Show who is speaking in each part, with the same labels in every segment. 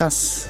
Speaker 1: Press.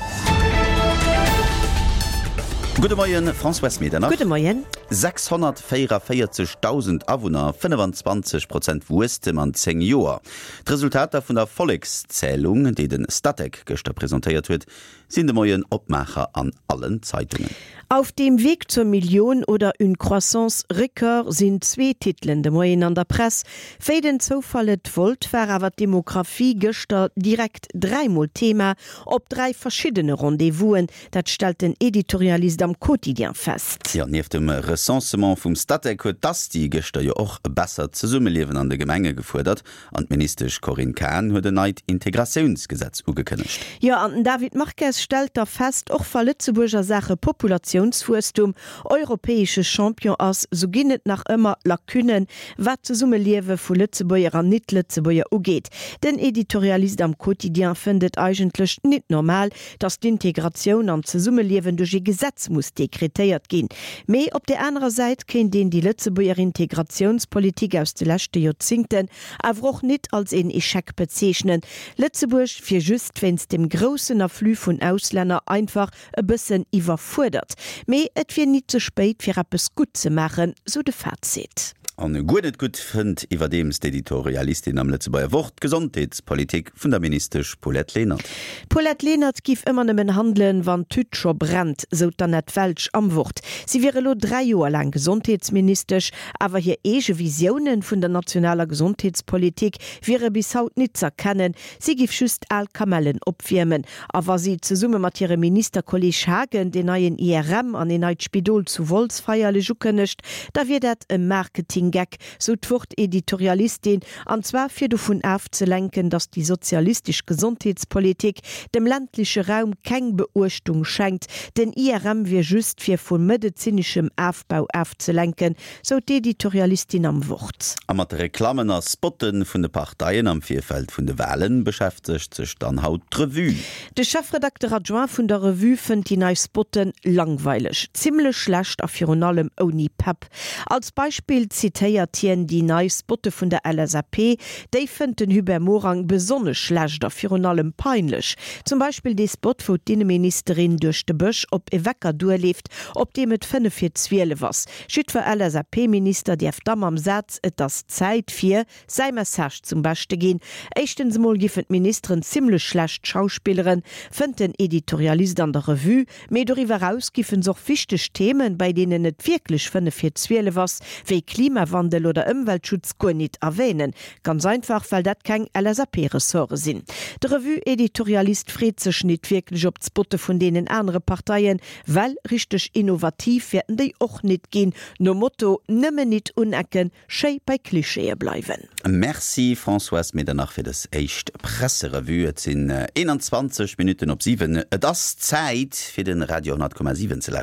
Speaker 1: Gudde Moien, Françoise Medernach.
Speaker 2: Gudde Moien.
Speaker 1: 644.000 Awunner, 25 Prozent Wuesstem an 10 Joer. D'Resultater vun der Vollekszälung, déi de Statec gëschter presentéiert huet, sinn de Moien Opmaacher an allen Zeitungen.
Speaker 2: Auf dem Weg zur Million oder Une croissance record sinn zwee Titelen de Moien an der Press. Wéi den Zoufall et wollt, war awer d'Demographie gëschter direkt dräimol Thema op dräi verschiddene Rendez-vousen. Dat stellt den Editorialist am Quotidien fest.
Speaker 1: Jo, nieft dem Recensement vum Statec huet d'Asti gëschter jo och e bessert Zesummeliewen an de Gemenge gefuerdert. An d'Ministesch Corinne Cahen huet en neit Integratiounsgesetz ugekënnegt.
Speaker 2: Jo, an den David Marques stellt da fest, och wa Lëtzebuerg a Saache Populatiounswuesstum europäesche Champion ass, sou ginn et nach ëmmer Lacunnen, wat d'Zesummeliewe vu Lëtzebuerger an Nit-Lëtzebuerger ugeet. Den Editorialist am Quotidien fënnt et eigentlech nit normal, datt d'Integratioun an d'Zesummeliewen duerch ee Gesetz muss dekretéiert ginn. Mee op där anerer Säit kéint een déi Lëtzebuerger Integratiounspolitik aus de leschte Joerzingten awer och nit als een Echec bezeechnen. Lëtzebuerg wier just wéinst dem groussen Afflux vun Auslänner einfach e bëssen iwwerfuerdert. Mee et wier nit ze spéit fir eppes gutt ze maachen, sou de Fazit.
Speaker 1: An guer net gutt fënnt iwwerdeems d'Editorialistin am Lëtzebuerger Wort d'Gesondheetspolitik vun der Ministesch Paulette Lenert.
Speaker 2: D'Paulette Lenert giff ëmmer nëmmen handelen, wann d'Tüt scho brennt, sou d'Annette Welsch am Wort. Si wier elo 3 Joer laang Gesondheetsministesch, awer hir eege Visiounen vun der nationaler Gesondheetspolitik wiere bis haut nit z'erkennen. Si giff just al Kamellen opwiermen. A wa si zesumme mat hirem Ministerkolleeg Haagen deen neien IRM an een neit Spidol zu Wolz feierlech ukënnegt, da wier dat e Marketinggeck, sou d'Wort-Editorialistin, an zwar fir dovun afzelenken, datt déi sozialistesch Gesondheetspolitik dem ländleche Raum keng Beuechtung schenkt. Den IRM wier just fir vu medezineschem Afbau afzelenken, Sou d'Editorialistin am Wort.
Speaker 1: A mat de Reklammen a Spotte vun de Parteien am Virfeld vun de Walen beschäftegt sech dann haut d'Revue.
Speaker 2: De Chefredakter adjoint vun der Revue fënnt déi nei Spotte langweileg, zimmlech schlecht a virun allem ouni Pepp. Als Beispill zitéiert hien déi nei Spotte vun der LSAP. Déi fënnt den Hubert Morang besonnesch schlecht a virun allem peinlech. Zum Beispill dee Spot, wou d'Inneministerin duerch de Bësch op e Wecker duerleeft, op deem et 5 vir 12 ass. Jiddwer LSAP-Minister däerf da mam Saz Et ass Zäit fir säi Message zum Beschte ginn. Éischtens emol giffen d'Ministeren zimmlech schlecht schauspilleren, fënnt den Editorialist an der Revue. Mee doriwwer eraus giffen s'och wichteg Themen, bei deenen et wierklech 5 vir 12 ass, wéi Klimawandel oder Ëmweltschutz, guer nit erwänen. Ganz einfach, well dat keng LSAP-Ressorte sinn. De Revue-Editorialist freet sech nit wierklech op d'Spotte vun deenen anere Parteien, Well richteg innovativ wäerten déi och nit ginn, nom Motto nëmmen nit unecken, schéi bei Klischeeë bleiwen.
Speaker 1: Merci Françoise Medernach fir dës éischt Presserevue. Et sinn 21 Minutten op 7. Et ass Zäit fir de Radio 10,7 ze lauschteren.